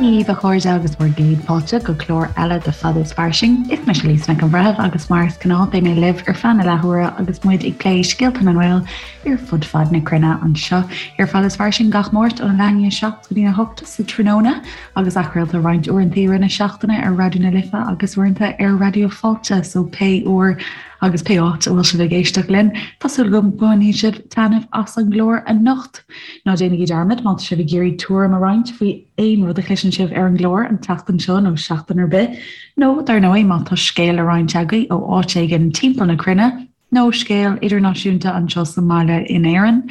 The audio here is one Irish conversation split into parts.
Dia dhaoibh a chairde agus bhur gcéad fáilte go clár eile de Fada is Fairsing. Is mise Lisa Nic an Bhreithimh agus mar is gnáth beidh mé libh ar feadh na leathuaire agus muid ag plé scéalta na nGael ar fud fad na cruinne anseo ar Fada is Fairsing gach Máirt óna leath i ndiaidh 7 go dtí a 8 sa tráthnóna agus athchraolta roinnt uaireanta i rith na seachtaine ar Raidió na Life agus uaireanta ar Raidió Fáilte so pé uair agus pé áit a bhfuil sibh ag éisteacht linn, tá súil agam go mbainfidh sibh taitneamh as an gclár anocht. Ná déanaigí dearmad má tá sibh ag iarraidh tuairim a roinnt faoi aon rud a chloiseann sibh ar an gclár an tseachtain seo nó seachtain ar bith, nó dar ndóigh má tá scéal le roinnt agaibh ó áit éigin timpeall na cruinne, nó scéal idirnáisiúnta anseo sa mbaile in Éirinn,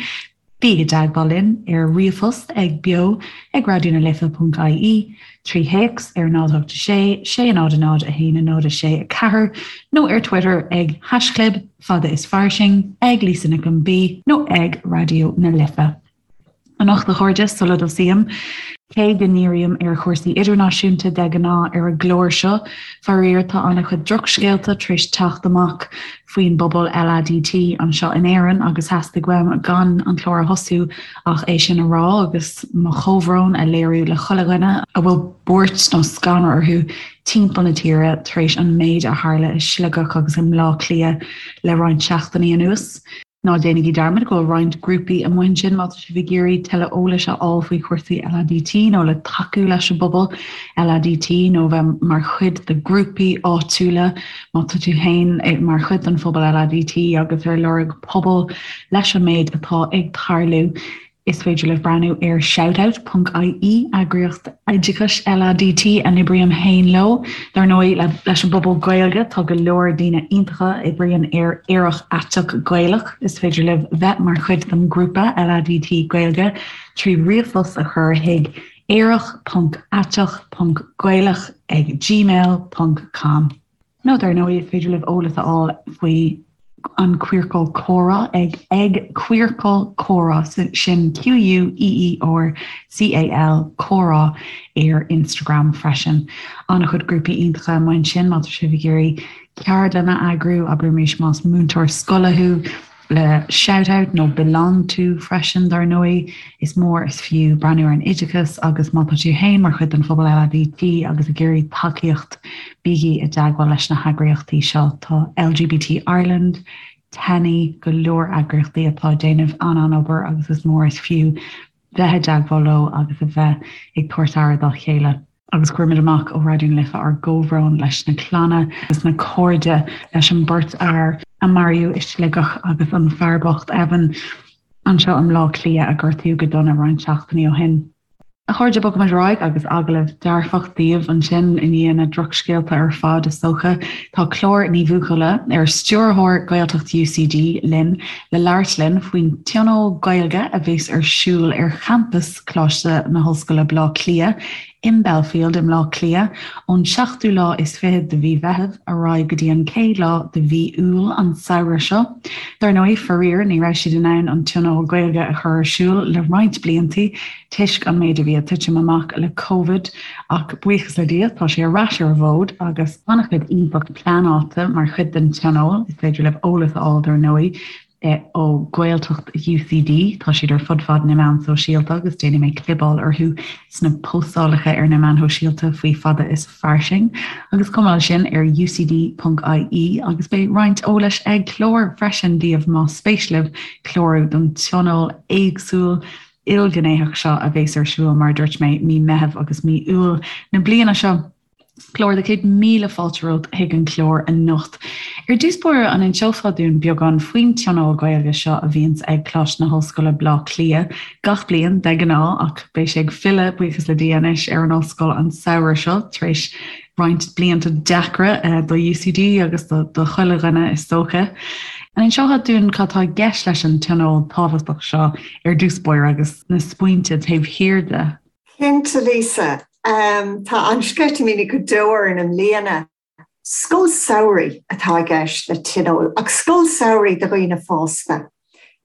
Bígí i dteagmháil linn ar ríomhphost ag beo ag raidionalife.ie, trí théacs ar 0 8 6 6 0 0 1 0 6 4 nó ar Twitter ag haischlib fada is fairsing, ag Lisa Nic an B nó ag Raidió na Life. Anocht a chairde, sula dtosaím, cé go ndírím ar chúrsaí idirnáisiúnta de ghnáth ar an gclár seo, faraor tá an-chuid drochscéalta tar éis teacht amach faoin bpobal LADT anseo in Éirinn agus theastaigh uaim gan an clár a thosú ach é sin a rá agus mo chomhbhrón a léiriú le chuile dhuine a bhfuil buairt nó scanradh orthu timpeall na tíre tar éis an méid a tharla i Sligeach agus i mBleá Cliath le roinnt seachtainí anuas. Ná déanaigí dearmad go bhfuil roinnt grúpaí amuigh ansin má tá sibh ag iarraidh tuilleadh eolais a fháil faoi chúrsaí LADT nó le tacú leis an bpobal LADT nó bheith mar chuid de ghrúpaí áitiúla má tá tú féin mar chuid den phobal LADT agus ar lorg pobal leis an méid atá ag tarlú. Is féidir libh breathnú ar shoutout.ie, eagraíocht oideachais LADT a n-oibrím féin leo. Dar ndóigh, leis an bpobal Gaeilge, tá go leor daoine iontacha a oibríonn ar Aerach Aiteach Gaelach. Is féidir libh bheith mar chuid den ghrúpa LADT Gaeilge trí ríomhphost a chur chuig aerach.aiteach.gaelach ag gmail ponc com. Nó dar ndóigh, is féidir libh eolas a fháil faoi an Queercal Comhrá ag ag Queercal Comhrá, sin Q-U-E-E-R-C-A-L Comhrá ar Instagram freisin. An-chuid grúpaí iontacha amuigh ansin má tá sibh ag iarraidh ceardlann a eagrú, abraimis más múinteoir scoile thú, le Shout Out nó Belong To freisin, dar ndóigh. Is mór is fiú breathnú ar an oideachas agus má tá tú féin mar chuid den phobal LADT agus ag iarraidh tacaíocht, bígí i dteagmháil leis na heagraíochtaí seo. Tá LGBT Ireland, TENI, go leor eagraíochtaí atá ag déanamh an-an-obair agus is mór is fiú bheith i dteagmháil leo agus a bheith ag tabhairt aire dá chéile. Agus cuirimid amach ó Raidió na Life ár gcomhbhrón leis na clanna agus na cairde leis an beirt fhear a maraíodh i Sligeach agus an fear bocht Evan anseo i mBleá Cliath a gortaíodh go dona roinnt seachtainí ó shin. A chairde, bogfaimid ar aghaidh agus agallamh dearfach daoibh ansin i ndiaidh na drochscéalta ar fad, is dócha. Tá Clár Ní Bhuachalla, ar Stiúrthóir Gaeltacht UCD, linn le labhairt linn faoin Tionól Gaeilge a bheas ar siúl ar champas Choláiste na hOllscoile Baile Átha Cliath i mBelfield i mBleá Cliath ón seachtú lá is fichead de mhí Mheithimh ar aghaidh go dtí an chéad lá de mhí Iúil an samhradh seo. Dar ndóigh, faraor, ní raibh siad in ann an Tionól Gaeilge a chur ar siúl le roinnt bliantaí toisc an méid a bhí ag titim amach le Covid ach buíochas le Dia tá sé ar ais ar an bhfód agus an-chuid iontach pleanáilte mar chuid den Tionól. Is féidir libh eolas a fháil dar ndóigh ó Ghaeltacht UCD. Tá siad ar fud fad na meán sóisialta agus déanfaidh mé clibeáil orthu sna postálacha ar na meáin shóisialta faoi Fada is Fairsing. Agus chomh maith leis sin ar ucd.ie agus beidh roinnt eolais ag Clár freisin daoibh más spéis libh clárú don tionól éagsúil ilghnéitheach seo a bheas ar siúl mar a dúirt mé mí Meitheamh agus mí Iúil na bliana seo. Clár, 100,000 fáilte romhat chuig an chlár anocht. Ar dtús báire, an inseofá dúinn beagán faoin Tionól Gaeilge seo a bhíonns ag Coláiste na hOllscoile Bleá Cliath gach bliain de ghnáth ach beidh sé ag filleadh, buíochas le Dia anois, ar an ollscoil an samhradh seo tar éis roinnt blianta deacra do UCD agus do chuile dhuine is dócha. An inseofá dúinn cad tá i gceist leis an tionól tábhachtach seo ar dtús báire agus na smaointe taobh thiar de? Cinnte, Lisa. Tá an-sceitimíní go deo orainn i mbliana. Scoil samhraidh atá i gceist le Tionól, ach scoil samhraidh do dhaoine fásta.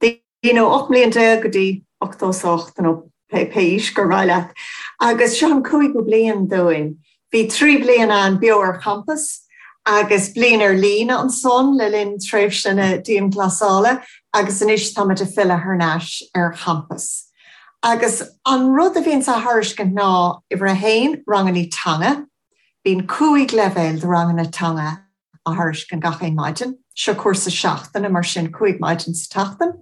Daoine ó 18 mbliain go dtí 88 nó pé aois gur mhaith leat. Agus seo an cúigiú bliain dúinn. Bhí 3 bliana ann beo ar champas agus bliain ar líne ansan le linn tréimhse na dianghlasála agus anois táimid ag filleadh thar n-ais ar champas. Agus an rud a bhíonns á thairiscint ná, uimhir a haon, rangannaí teanga. Bíonn 5 leibhéal de ranganna teanga á thairiscint gach aon maidin. Seo cúrsa seachtaine, mar sin 5 maidin sa tseachtain.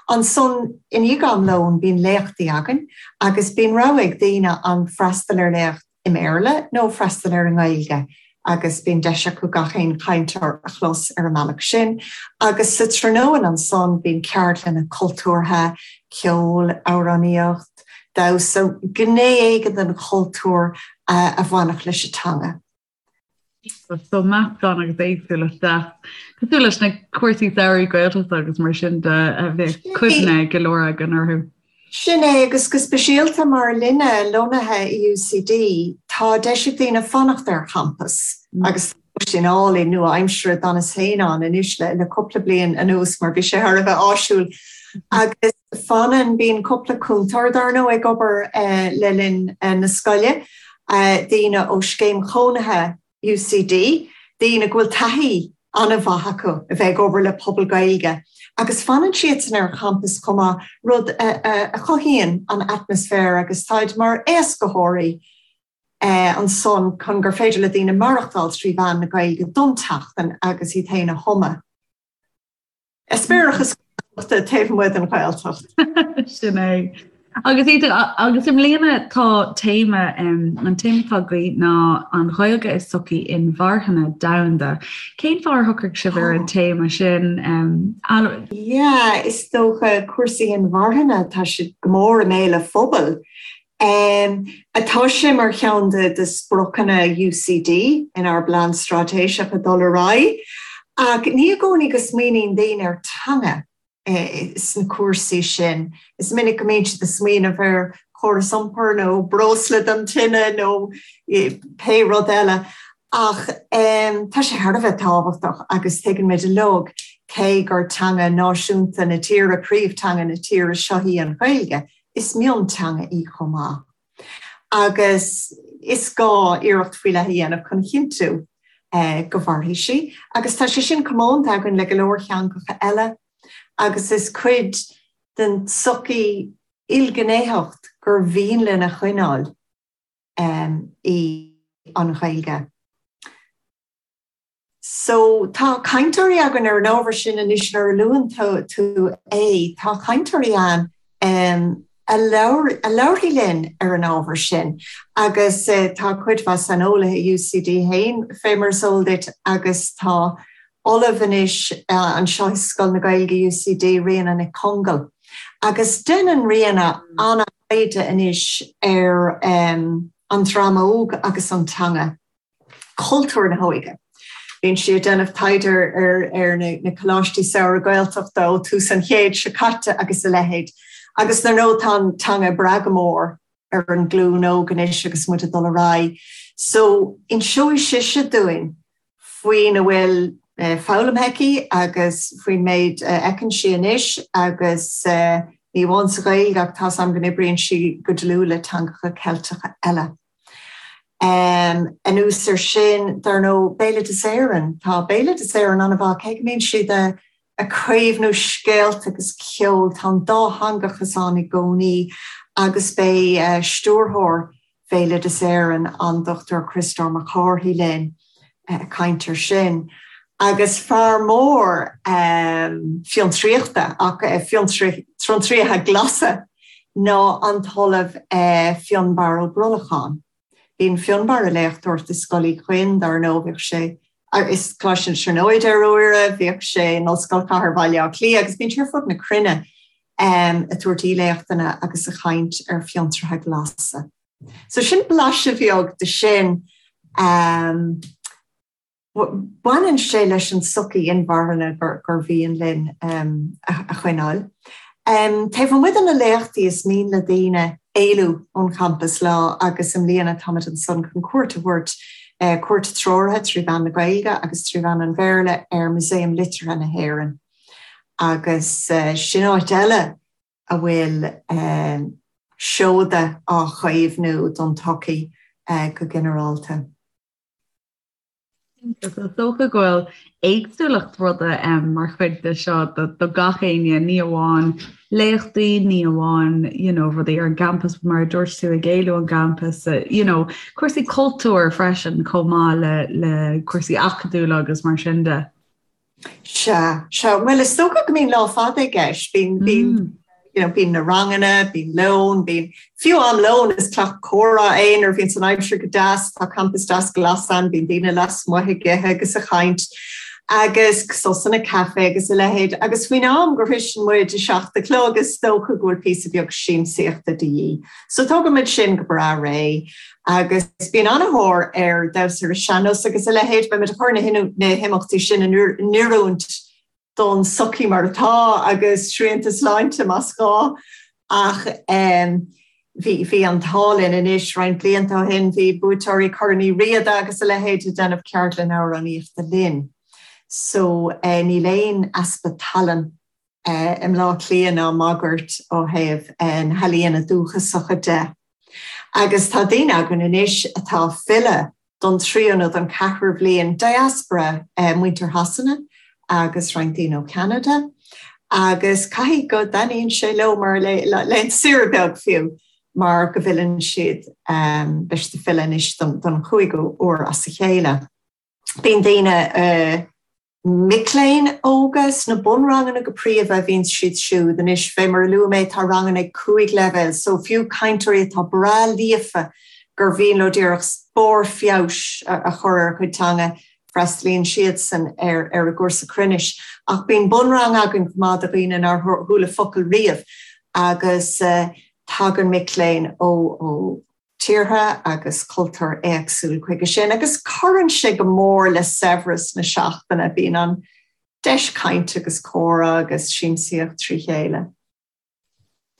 Ansan, i ndiaidh am lóin, bíonn léachtaí againn agus bíonn rogha ag daoine an freastal ar léacht i mBéarla nó freastal air i nGaeilge agus bíonn deis acu gach aon chainteoir a chlos ar an mbealach sin. Agus sa tráthnóna ansan bíonn ceardlanna cultúrtha, ceol, amhránaíocht, damhsa, gné éigin den chultúr a bhainfeadh leis an teanga. So meascán agus éagsúlacht deas. Cosúil leis na cúrsaí samhraidh Gaeltachta agus mar sin de a bheadh cuimhne ag go leor againn orthu. Sin é, agus go speisialta mar linne lonnaithe i UCD, tá deis ag daoine fanacht ar champas agus tá lóistín álainn nua-aimseartha, d'fhanas féin ann anois le cúpla bliain anuas mar bhí sé thar a bheith áisiúil. Agus fanann, bíonn cúpla cúntóir dar ndóigh ag obair le linn na scoile, daoine ó scéim chónaithe UCD, daoine go bhfuil taithí an-mhaith acu a bheith ag obair le pobal Gaeilge agus fanann siadsan ar champas chomh maith, rud a chothaíonn an atmaisféar agus táid mar éascaitheoirí ansan chun gur féidir le daoine maireachtáil trí mheán na Gaeilge don tseachtain agus iad féin a thumadh. Eispéireachas Gaeltachta taobh amuigh den Ghaeltacht. Sin é. Agus agus i mbliana tá téama an téama atá agaibh ná an Ghaeilge i sochaí inmharthana domhanda. Cén fáth ar shocraigh sibh ar an téama sin? Yeah, is dócha cúrsaí inmharthana, tá siad go mór i mbéal an phobail. Tá sé mar cheann de spriocanna UCD inár bplean straitéiseach ag dul ar aghaidh, ach ní i gcónaí go smaoiníonn daoine ar teanga sna cúrsaí sin. Is minic go mbíonn siad ag smaoineamh ar chóras iompair nó breosla don tine nó pé rud eile, ach tá sé thar a bheith tábhachtach agus tuigeann muid uilig cé gur teanga náisiúnta na tíre, príomhteanga na tíre seo í an Ghaeilge, Is mionteanga í chomh maith agus is gá iarracht faoi leith a dhéanamh chun a chinntiú go mairfidh sí agus tá sé sin comónta againn le go leor teangacha eile agus is cuid den tsochaí ilghnéitheacht gur mhian linn a choinneáil í an Ghaeilge. So, tá cainteoirí againn ar an ábhar sin anois nuair a luann tú é, tá cainteoirí ann a labharfaidh linn ar an ábhar sin agus tá cuid mhaith saineolaithe i UCD féin, fé mar is eol duit, agus tá ollamh anois anseo i Scoil na Gaeilge UCD, Ríona Nic Congail. Agus déanann Ríona an-taighde anois ar an dream óg agus an teanga. cultúr na hóige. Bíonn sí ag déanamh taighde ar na coláistí samhraidh Gaeltachta ó tús an chéid seo caite agus a leithéid. Agus dar ndóigh tá an teanga ag brath go mór ar an nglúin óg anois agus muid ag dul ar aghaidh. So inseoidh sise dúinn faoina bhfuil foghlamtha aici agus faoin méid a fheiceann sí anois agus ní amháin sa Ghaeilge ach tá's agam go n-oibríonn sí go dlúth le teangacha Ceilteacha eile. Anuas air sin, dar ndóigh, Béaloideas Éireann. Tá Béaloideas Éireann an-mhaith, cé go mbíonn siad ag caomhnú scéalta agus ceol, tá an dátheangachas ann i gcónaí agus beidh stiúrthóir Bhéaloideas Éireann, an Dr Criostóir Mac Cárthaigh linn ag caint air sin. Agus fear mór fiontraíochta, ach fiontraíochta glasa, ná an tOllamh Fionnbarra Ó Brolacháin. Bíonn Fionnbarra ag léachtóireacht i Scoil Uí Chuinn, dar ndóigh, bhíodh sé i Coláiste na Tríonóide ar uaire, bhíodh sé in Ollscoil Chathair Bhaile Átha Cliath agus bíonn sé ar fud na cruinne ag tabhairt aoiléachtanna agus ag caint ar fiontraithe glasa. So sin blaiseadh bheag de sin. Baineann sé leis an tsochaí inmharthana gur mhian linn a choinneáil. Taobh amuigh de na léachtaí is mian le daoine éalú ón champas lá agus i mbliana táimid ansan chun cuairt a thabhairt, cuairt treoraithe trí mheán na Gaeilge agus trí mheán an Bhéarla ar Músaem Liteartha na hÉireann agus sin áit eile a bhfuil seoda á chaomhnú don tsochaí go ginearálta. Is dócha go bhfuil éagsúlacht rudaí mar chuid de seo do gach éinne, ní amháin léachtaí, ní amháin you know, rudaí ar an gcampas mar a dúirt tú ag éalú ón gcampas, you know, cúrsaí cultúir freisin chomh maith le, le cúrsaí acadúla agus mar sin de. Sea, sea. Bhuel, is dócha go mbíonn lá fada i gceist. Bíonn, bíonn, you know, bíonn na ranganna, bíonn lón, bíonn, fiú am lóin is teach comhrá é nuair a bhíonns an aimsir go deas, tá campas deas glas ann, bíonn daoine lasmuigh ag ithe agus ag caint agus sosanna caife agus a leithéid. Agus faoin am go shroiseann muid 7 a chlog is dócha go bhfuil píosa beag siamsaíochta de dhíth. So tógann muid sin go breá réidh. Agus bíonn an-thóir ar damhsa ar an sean-nós agus a leithéid. Beidh muid ag cur na himeachtaí sin in oiriúint don tsochaí mar atá agus srianta sláinte más gá. Ach bhí bhí an t-ádh linn anois roinnt blianta ó shin, bhí buaiteoirí Chorn Uí Riada agus a leithéid ag déanamh ceardlann amhránaíochta linn. So níl aon easpa tallann i mBleá Cliath ná máguaird ó thaobh na healaíona dúchasacha de. Agus tá daoine againn anois atá ag filleadh don tríú nó don cheathrú bhliain, diaspora muintir Shasana agus roinnt daoine ó Cheanada, agus caithfidh go dtaitníonn sé leo mar laethanta saoire beag fiú, mar go bhfilleann siad, beidh siad ag filleadh anois don chúigiú uair as a chéile. Bíonn daoine. Mic léinn óga sna bunranganna go príomha a bhíonn siad siúd. Anois, fé mar a luaigh mé, tá ranganna ag 5 leibhéal, so fiú cainteoirí atá breá líofa gur mhian leo díreach barr feabhais a chur ar a gcuid teanga, freastalaíonn siadsan ar ar an gcúrsa cruinnis. Ach bíonn bunrang againn chomh maith do dhaoine nár chuala focal riamh agus tagann mic léinn ó ó tíortha agus cultúir éagsúil chuige sin agus cuireann sé go mór le saibhreas na seachtaine, bíonn an deis cainte agus comhrá agus siamsaíocht trí chéile.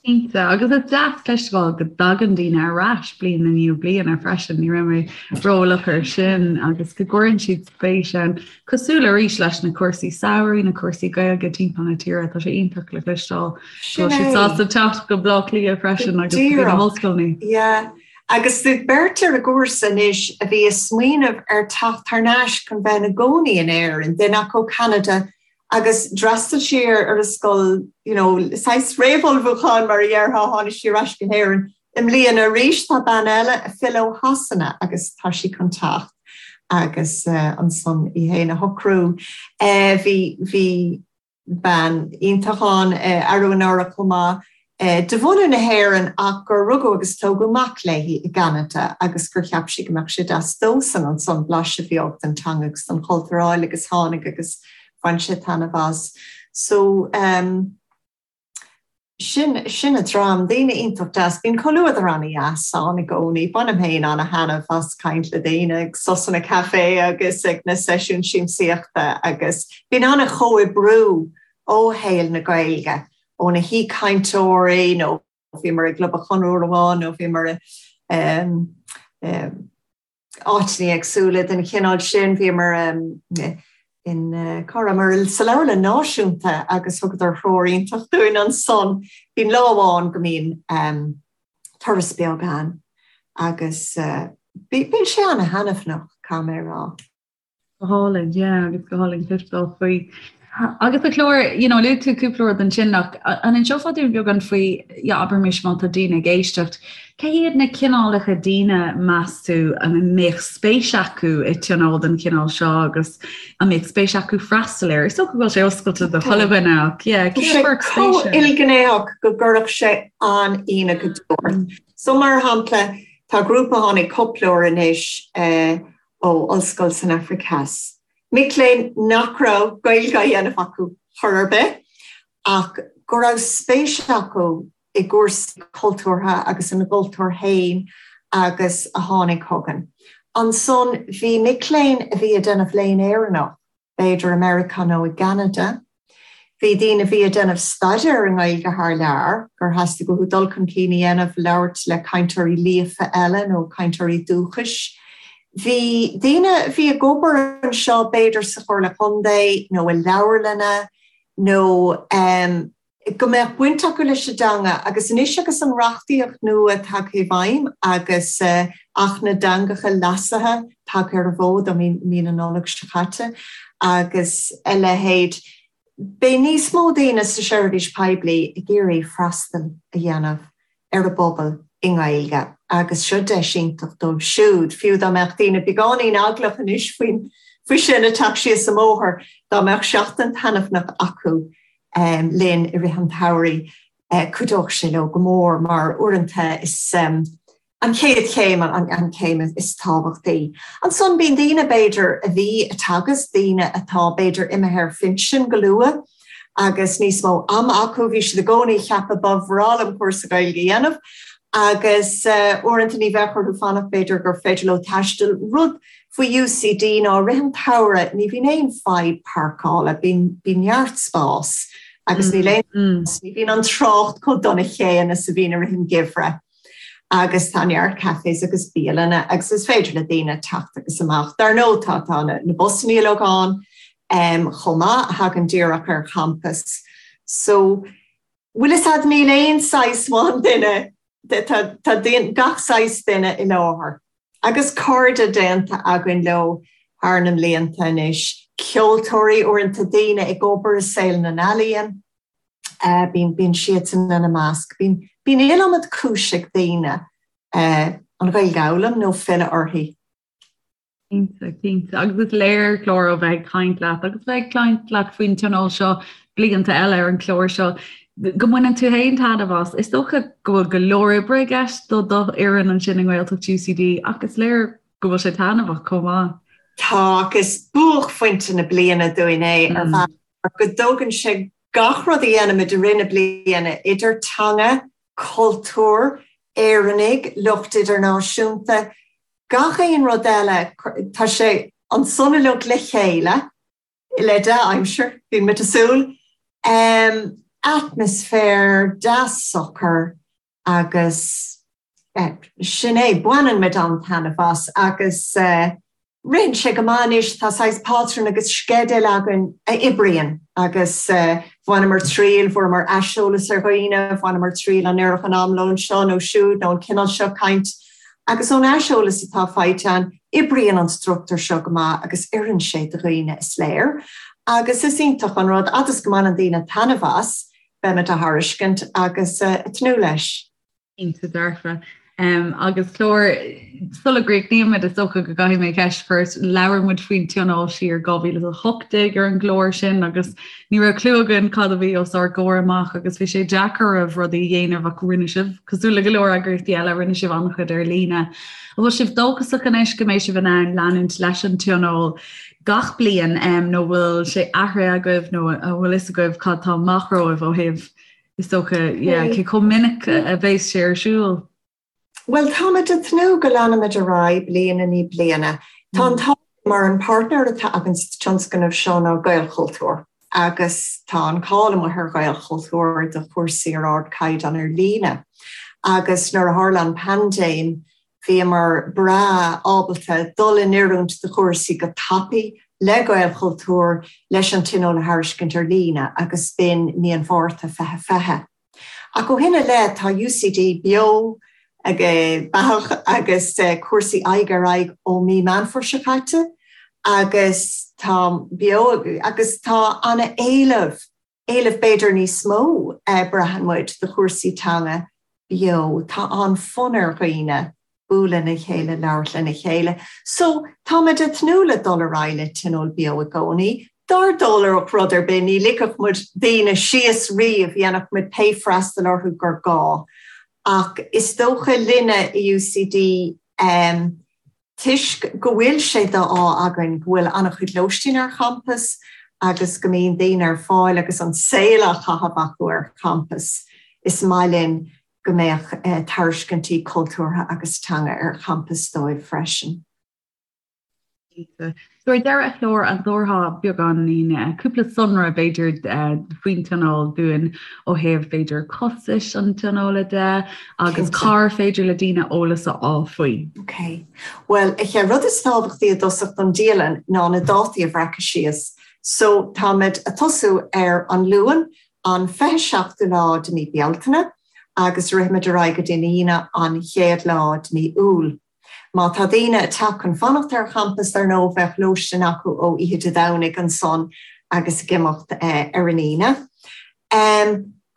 Cinnte, agus is deas cloisteáil go dtagann daoine ar ais bliain i ndiaidh bliana freisin, ní raibh mé ró-eolach air sin, agus go gcuireann siad spéis ann, cosúil arís leis na cúrsaí samhraidh, na cúrsaí Gaeilge timpeall na tíre, tá sé iontach le cloisteáil. Tá siad sásta teacht go Bleá Cliath freisin agus go na hollscoileanna. Yeah. Agus bhí beirt ar an gcúrsa anois a bhí ag smaoineamh ar teacht thar n-ais chun bheith ina gcónaí in Éirinn, duine acu ó Cheanada agus d'fhreastail sí ar an scoil, you know, saghas réamhullmhúcháin mar a dhéarfá, tháinig sí ar ais go hÉirinn i mbliana arís. Tá bean eile ag filleadh ó Shasana agus tá sí chun teacht agus ansan í féin a shocrú. Bhí, bhí. bean iontach ann arú anuraidh chomh maith, de bhunadh na hÉireann ach gur rugadh agus tógadh mac léi i gCeanada agus gur cheap sí go mbeadh sé deas dósan ansan blaiseadh beag den teanga agus den chultúr a fháil agus tháinig agus bhain sé taitneamh as. So, um. Sin, sin an dream, daoine iontach deas. Bíonn comhluadar ana-dheas ann i gcónaí. Bainim féin ana-thaitneamh as caint le daoine ag sosanna caife agus ag na seisiúin siamsaíochta agus bíonn ana-chomhoibriú ó shaol na Gaeilge, ó na haoichainteoirí nó bhíomar i gClub an Chonradh uair amháin nó bhíomar i áiteanna éagsúla den chineál sin. Bhíomar in, cá rabhamar, sa Leabharlann Náisiúnta agus thugadar threoir iontach dúinn ansan. Bíonn lá amháin go mbíonn turas beag ann agus bíonn sé ana-thaitneamhach, caithfidh mé a rá. Go hálainn, yeah, agus go hálainn cloisteáil faoi. Agus a Chlár, you know, luaigh tú cúpla rud ansin ach an inseofá dúinn beagán faoi, yeah, abraimis má tá daoine ag éisteacht, cé hiad na cineálacha daoine meas tú a mbeadh spéis acu i tionól den chineál seo agus a mbeadh spéis acu freastal air? Is dócha go bhfuil sé oscailte do chuile dhuine ach, yeah, cé a chuirfeadh spéis air? ilghnéitheach go gcuirfeadh sé an-ionadh go deo ort. So mar shampla, tá grúpa a tháinig cúpla uair anois eh, ó ollscoil san Afraic Theas. Mic léinn nach raibh Gaeilge á dhéanamh acu chor ar bith ach go raibh spéis acu i gcúrsaí cultúrtha agus ina gcultúr féin agus a tháinig chugainn. Ansan bhí mic léinn a bhí ag déanamh léinn Éireannach b'fhéidir i Meiriceá nó i gCeanada. Bhí daoine a bhí ag déanamh staidéir i nGaeilge thar lear, gur theastaigh uathu dul chun cinn a dhéanamh, labhairt le cainteoirí líofa eile nó cainteoirí dúchais. Bhí daoine a bhí ag obair anseo, b'fhéidir sa Chomhairle Contae nó i leabharlanna nó. Go mbeadh baint acu leis an dteanga agus anois agus an reachtaíocht nua tagtha i bhfeidhm agus Acht na dTeangacha leasaithe tagtha ar an bhfód ó mí na Nollag seo caite agus a leithéid, beidh níos mó daoine sa seirbhís poiblí ag iarraidh freastal a dhéanamh ar an bpobal i nGaeilge agus seo deis iontach dóibh siúd, fiú dá mbeadh daoine beagáinín eaglach anois faoin faoi sin ag teacht síos an bóthar, dá mbeadh seachtain taitneamhnach acu linn i rith an tsamhraidh, cuideoidh sé leo go mór mar uaireanta is an chéad chéim an chéim is tábhachtaí. Ansan bíonn daoine b'fhéidir a bhí ag teagasc, daoine atá b'fhéidir imithe ar phinsean go luath agus níos mó ama acu, bhí siad i gcónaí ag ceapadh ba bhreá liom cúrsa Gaeilge a dhéanamh agus uaireanta ní bheadh orthu fanacht b'fhéidir gur féidir leo taisteal. Rud faoi UCD ná i rith an tsamhraidh ní bhíonn aon fadhb páirceála, bíonn neart spás agus níl aon, ní bhíonn an trácht chomh dona chéanna is a bhíonn i rith an gheimhridh. Agus tá neart cafés agus bialanna agus is féidir le daoine teacht agus amach. Dar ndóigh tá tá na busanna uilig ann chomh maith a thagann díreach ar champas. So bhfuil fhios a'd níl aon saghas amháin duine, tá tá gach saghas duine i láthair. Agus cairde déanta againn leo thar na mblianta anois, ceoltóirí, uaireanta daoine ag obair i saol na n-ealaíon. Bíonn, bíonn siadsan ina measc. Bíonn, bíonn iliomad cúis ag daoine an Ghaeilge a fhoghlaim nó filleadh uirthi. Cinnte, cinnte. Agus is léir, Clár, ó bheith ag caint leat agus bheith ag caint leat faoin tionól seo blianta eile ar an chlár seo, go mbaineann tú féin taitneamh as. Is dócha go bhfuil go leor oibre i gceist do do fhoireann ansin i nGaeltacht UCD ach is léir go bhfuil sé taitneamhach chomh maith. Tá, agus buaicphointe na bliana dúinn é ar bhealach mar go dtógann sé gach rud a dhéanaimid i rith na bliana, idir teanga, cultúr, Éireannaigh, lucht idirnáisiúnta, gach aon rud eile, tá sé ansan uilig le chéile, le dea-aimsir, bíonn muid ag súil, atmaisféar deas socair agus sin é, baineann muid an-taitneamh as agus ritheann sé go maith anois, tá saghas pátrún agus sceideal againn a oibríonn agus bhaineamar triail, bhfuaireamar aiseolas ar dhaoine, bhaineamar triail an oirfeadh an amlón seo nó siúd nó an cineál seo caint agus ón aiseolas atá faighte againn, oibríonn an struchtúr seo go maith agus oireann sé do dhaoine is léir agus is iontach an rud, fhad is go mbaineann daoine taitneamh as, beimid á thairiscint agus ag tnúth leis. Cinnte dearfa. Agus Clár, sula gcríochnaímid, is dócha go gcaithfidh mé ceist a chur ort. Labhair muid faoin tionól siar 2018 ar an gclár sin agus ní raibh clue againn cad a bhí os ár gcomhair amach agus bhí sé deacair oraibh rudaí a dhéanamh ach rinne sibh, cosúil le go leor eagraíochtaí eile, rinne sibh an-chuid ar líne. An bhfuil sibh dóchasach anois go mbeidh sibh in ann leanúint leis an tionól gach bliain nó bhfuil sé athraithe agaibh nó an bhfuil fhios agaibh cad tá amach romhaibh ó thaobh Is dócha, yeah, cé chomh minic a bheas sé ar siúl? Bhuel, táimid ag tnúth go leanfaimid ar aghaidh bliain i ndiaidh bliana. Tá an t-ádh mar an páirtnéir atá againn sa tionscnamh seo ná Gaelchultúr agus tá an cáil amuigh ar Ghaelchultúr do chúrsaí ar ardchaighdeán ar líne. Agus nuair a tharla an paindéim, Bhíomar breá ábalta dul in oiriúint do chúrsaí go tapaidh le Gaelchultúr leis an Tionól a thairiscint ar líne agus b'in mí an Mhárta 2020. Ach ó shin i leith tá UCD beo beathach agus cúrsaí aghaidh ar aghaidh ó mí Meán Fómhair seo caite agus tá beo agus tá an-éileamh éileamh b'fhéidir níos mó, braitheann muid, do chúrsaí teanga beo. Tá an-fhonn ar dhaoine bualadh lena chéile, labhairt lena chéile. So, táimid ag tnúth le dul ar aghaidh le Tionól Beo i gcónaí. Dá dtarlódh rud ar bith, ní ligfeadh muid daoine síos riamh, dhéanfadh muid pé freastal orthu gur gá. Ach is dócha linne i UCD, Toisc go bhfuil sé d'ádh againn go bhfuil an-chuid lóistín ar champas agus go mbíonn daoine ar fáil agus an saol á chaitheamh acu ar champas, is maith linn go mbeadh tairiscintí cultúrtha agus teanga ar champas dóibh freisin. Cinnte. So ar deireadh a Chlár, an dtabharfá beagáinín, cúpla sonra b'fhéidir faoin tionól dúinn ó thaobh b'fhéidir costais an tionóla de agus cár féidir le daoine eolas a fháil faoi? Ok. Bhuel, a chéad rud is tábhachtaí i dtosach don dialann ná na dátaí a bhreacadh síos. So táimid ag tosú ar an Luan, an 27ú lá de mí Bealtaine agus rithimid ar aghaidh go dtí an Aoine an chéad lá de mí Iúil. Má tá daoine ag teacht chun fanacht ar champas, dar ndóigh, bheadh lóistín acu ó oíche Dé Domhnaigh ansan agus ag imeacht ar an Aoine.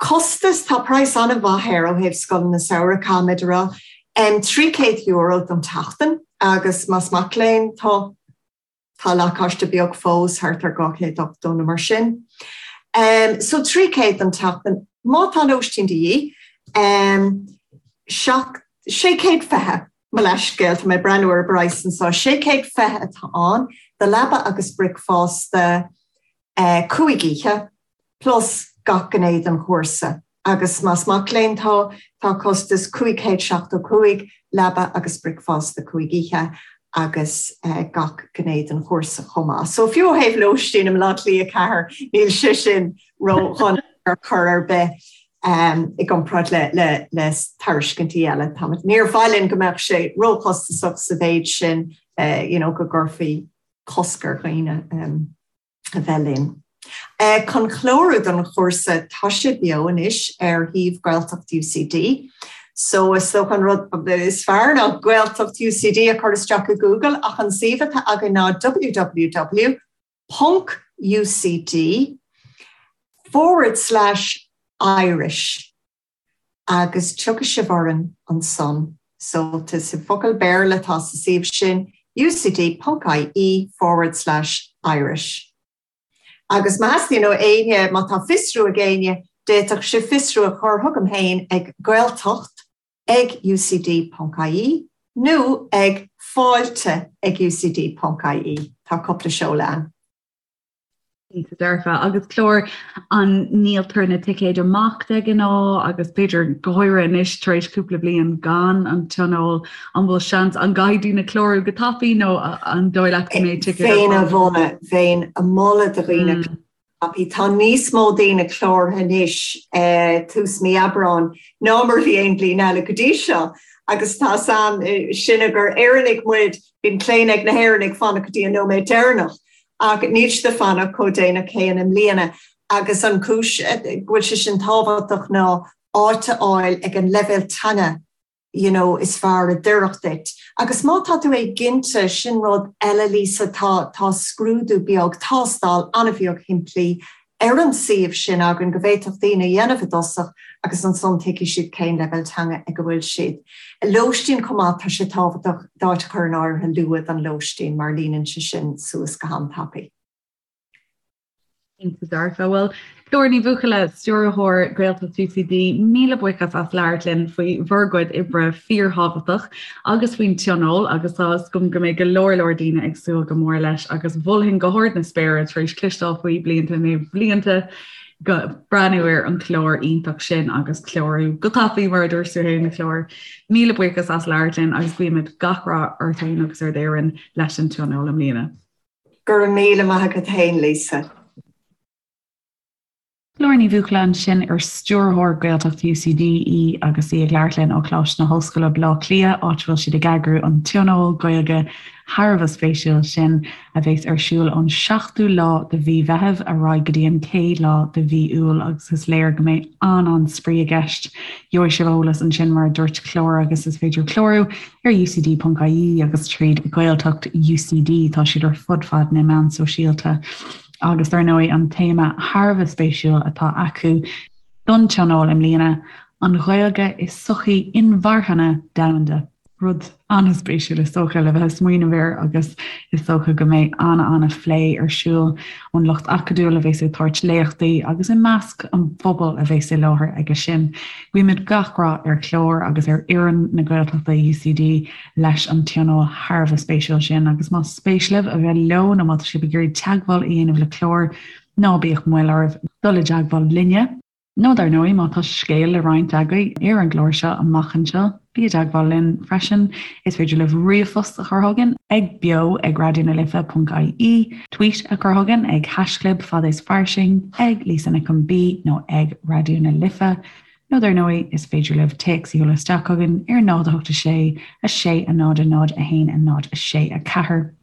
Costas, tá praghas an-mhaith air ó thaobh scoileanna samhraidh, caithfimid a rá. €300 don tseachtain agus más mac léinn tú, Tá lacáiste beag fós, thart ar 280 nó mar sin. So 300 don tseachtain. Má tá lóistín de dhíth, 620, mo leithscéal, tá mé ag breathnú ar an bpraghas anseo, 620 atá ann do leaba agus bricfeasta 5 oíche. plus gach gné den chúrsa agus más mac léinn tú, tá costas 575, leaba agus bricfeasta 5 oíche agus gach gné den chúrsa chomh maith. So fiú ó thaobh lóistín i mBaile Átha Cliath 4, níl sé sin ró-dhona ar chor ar bith i gcomparáid le le tairiscintí eile. Táimid, níor mhaith linn go mbeadh sé róchostasach sa mhéid sin you know go gcuirfí cosc ar dhaoine. a bheith linn. Chun clárú don chúrsa, tá sé beo anois ar shuíomh Gaeltacht UCD. So is dócha an rud is fearr ná Gaeltacht UCD a chur isteach i Google ach an suíomh atá againn ná www ponc UCD forward slash Irish agus tiocfaidh sibh orainn ansan. So is i bhfocal Béarla atá sa suíomh sin, ucd ponc ie forward slash Irish. Agus má theastaíonn ó éinne, má tá fiosrú ag éinne, d'fhéadfadh sibh fiosrú a chur chugam féin ag gaeltacht ag ucd ponc ie nó ag fáilte ag ucd ponc ie. Tá cúpla seoladh ann. Cinnte dearfa. Agus Clár, an ndíoltar na ticéid amach de ghnáth agus b'fhéidir go háirithe anois tar éis cúpla bliain gan an tionól, an bhfuil seans, an gcaithfidh daoine clárú go tapaidh nó an dóigh leat go mbeidh ticéid ar fáil? Bheinn, bheinn ag moladh do dhaoine mm. tapaidh. Tá níos mó daoine cláraithe anois eh, tús mí Aibreáin ná mar a bhí aon bhliain eile go dtí seo agus tá san eh, sinne gur Éireannaigh muid, bíonn claonadh ag na hÉireannaigh fanacht go dtí an nóiméad deireanach. Ach níl siad ag fanacht chomh déanach céanna i mbliana agus an chúis go bhfuil sé sin tábhachtach ná áit a fháil ag an leibhéal teanga you know is fearr a d'oirfeadh duit. Agus má tá tú éiginnte, sin rud eile Lisa, tá tá scrúdú beag, tástáil an-bheag shimplí ar an suíomh sin againn go bhféadfadh daoine a dhéanamh i dtosach agus ansan tuigfidh siad cén leibhéal teanga ag a bhfuil siad. Lóistín chomh maith, tá sé tábhachtach d'áit a chur in áirithe luath don lóistín mar líonann sé sin suas go han-tapaidh. Cinnte dearfa. Bhuel, Clár Ní Bhuachalla, Stiúrthóir Gaeltacht UCD, míle buíochas as labhairt linn faoi bhur gcuid oibre fíorthábhachtach agus faoin tionól agus tá fhios agam go mbeidh go leor leor daoine ag súil go mór leis agus mholfainn go hard na spéire tar éis cloisteáil faoi blianta i ndiaidh blianta go breathnú ar an chlár iontach sin agus clárú go tapaidh mar a dúirt tú féin a Chlár. Míle buíochas as labhairt linn agus guímid gach rath ort féin agus ar d'fhoireann leis an tionól i mbliana. Go raibh míle maith agat féin Lisa. Clár Ní Bhuachalla ansin ar Stiúrthóir Gaeltacht UCD í agus í ag labhairt linn ó Choláiste na hOllscoile, Baile Átha Cliath, áit a bhfuil siad ag eagrú an tionól Gaeilge thar a bheith spéisiúil sin a bheas ar siúl ón 7ú lá de mhí Mheithimh ar aghaidh go dtí an 1ú lá de mhí Iúil agus is léir go mbeidh an-an-spraoi i gceist. Gheobhaidh sibh eolas ansin mar a dúirt Clár agus is féidir clárú ar ucd.ie agus tríd Gaeltacht UCD, tá siad ar fud fad na meán sóisialta. Agus dar ndóigh an téama thar a bheith spéisiúil atá acu don tionól i mbliana, an Ghaeilge i sochaí inmharthana domhanda. Rud an-spéisiúil is dócha le bheith ag smaoineamh air agus is dócha go mbeidh an-an-phlé ar siúl ón lucht acadúil a bheas ag tabhairt léachtaí agus i measc an phobail a bheas i láthair aige sin. Guímid gach rath ar Chlár agus ar fhoireann na Gaeltachta UCD leis an tionól thar a bheith spéisiúil sin agus más spéis libh a bheith leo nó má tá sibh ag iarraidh teagmháil a dhéanamh le Clár, ná bíodh moill oraibh dul i dteagmháil linne. Nó dar ndóigh má tá scéal le roinnt agaibh ar an gclár seo amach anseo, bí i dteagmháil linn freisin. Is féidir libh ríomhphost a chur chugainn ag beo ag raidionalife.ie, tweet a chur chugainn ag haischlib fad is fairsing, ag Lisa Nic Con B nó ag Raidió na Life. Nó dar ndóigh, is féidir libh téacs a sheoladh isteach chugainn ar 0 8 6 6 0 0 1 0 6 4.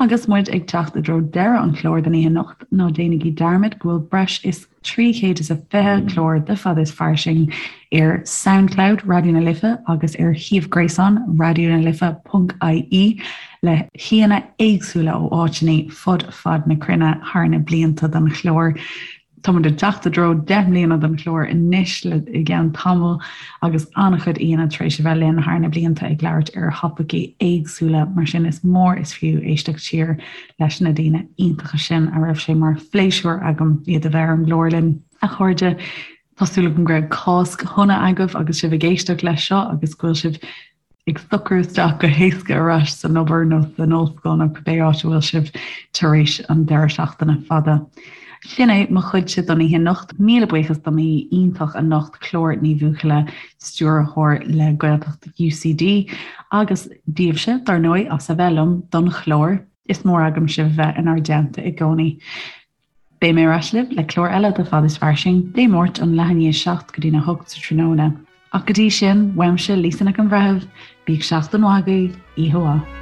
Agus muid ag teacht i dtreo deireadh an chláir don oíche anocht, ná déanaigí dearmad go bhfuil breis is 320 clár de Fada is Fairsing ar Soundcloud Raidió na Life agus ar shuíomh gréasáin raidionalife.ie le haíonna éagsúla ó áiteanna fud fad na cruinne thar na blianta den chlár. Táimid ag teacht i dtreo 10 mbliana den chlár anois le i gceann tamaill agus an-chuid aíonna tar éis a bheith linn thar na blianta ag labhairt ar thopaicí éagsúla, mar sin is mór is fiú éisteacht siar leis na daoine iontacha sin a raibh sé mar phléisiúr agam iad a bheith ar an gclár linn. A chairde, tá súil agam go raibh Cásc shona agaibh agus sibh ag éisteacht leis seo agus go bhfuil sibh ag socrú isteach go héasca ar ais san obair nó san ollscoil nó cibé áit a bhfuil sibh tar éis an deireadh seachtaine fada. Sin é mo chuidse don oíche anocht. Míle buíochas do m'aoi iontach anocht, Clár Ní Bhuachalla, Stiúrthóir le Gaeltacht UCD, agus daoibhse, dar ndóigh, as a bheith liom don chlár. Is mór agam sibh bheith inár dteannta i gcónaí. Beidh mé ar ais libh le clár eile de Fad is Fairsing, Dé Máirt ón leath i ndiaidh 7 go dtí'n 8 sa tráthnóna. Ach go dtí sin, uaimse, Lisa Nic an Bhreithimh, bíodh seachtain mhaith agaibh, oíche mhaith.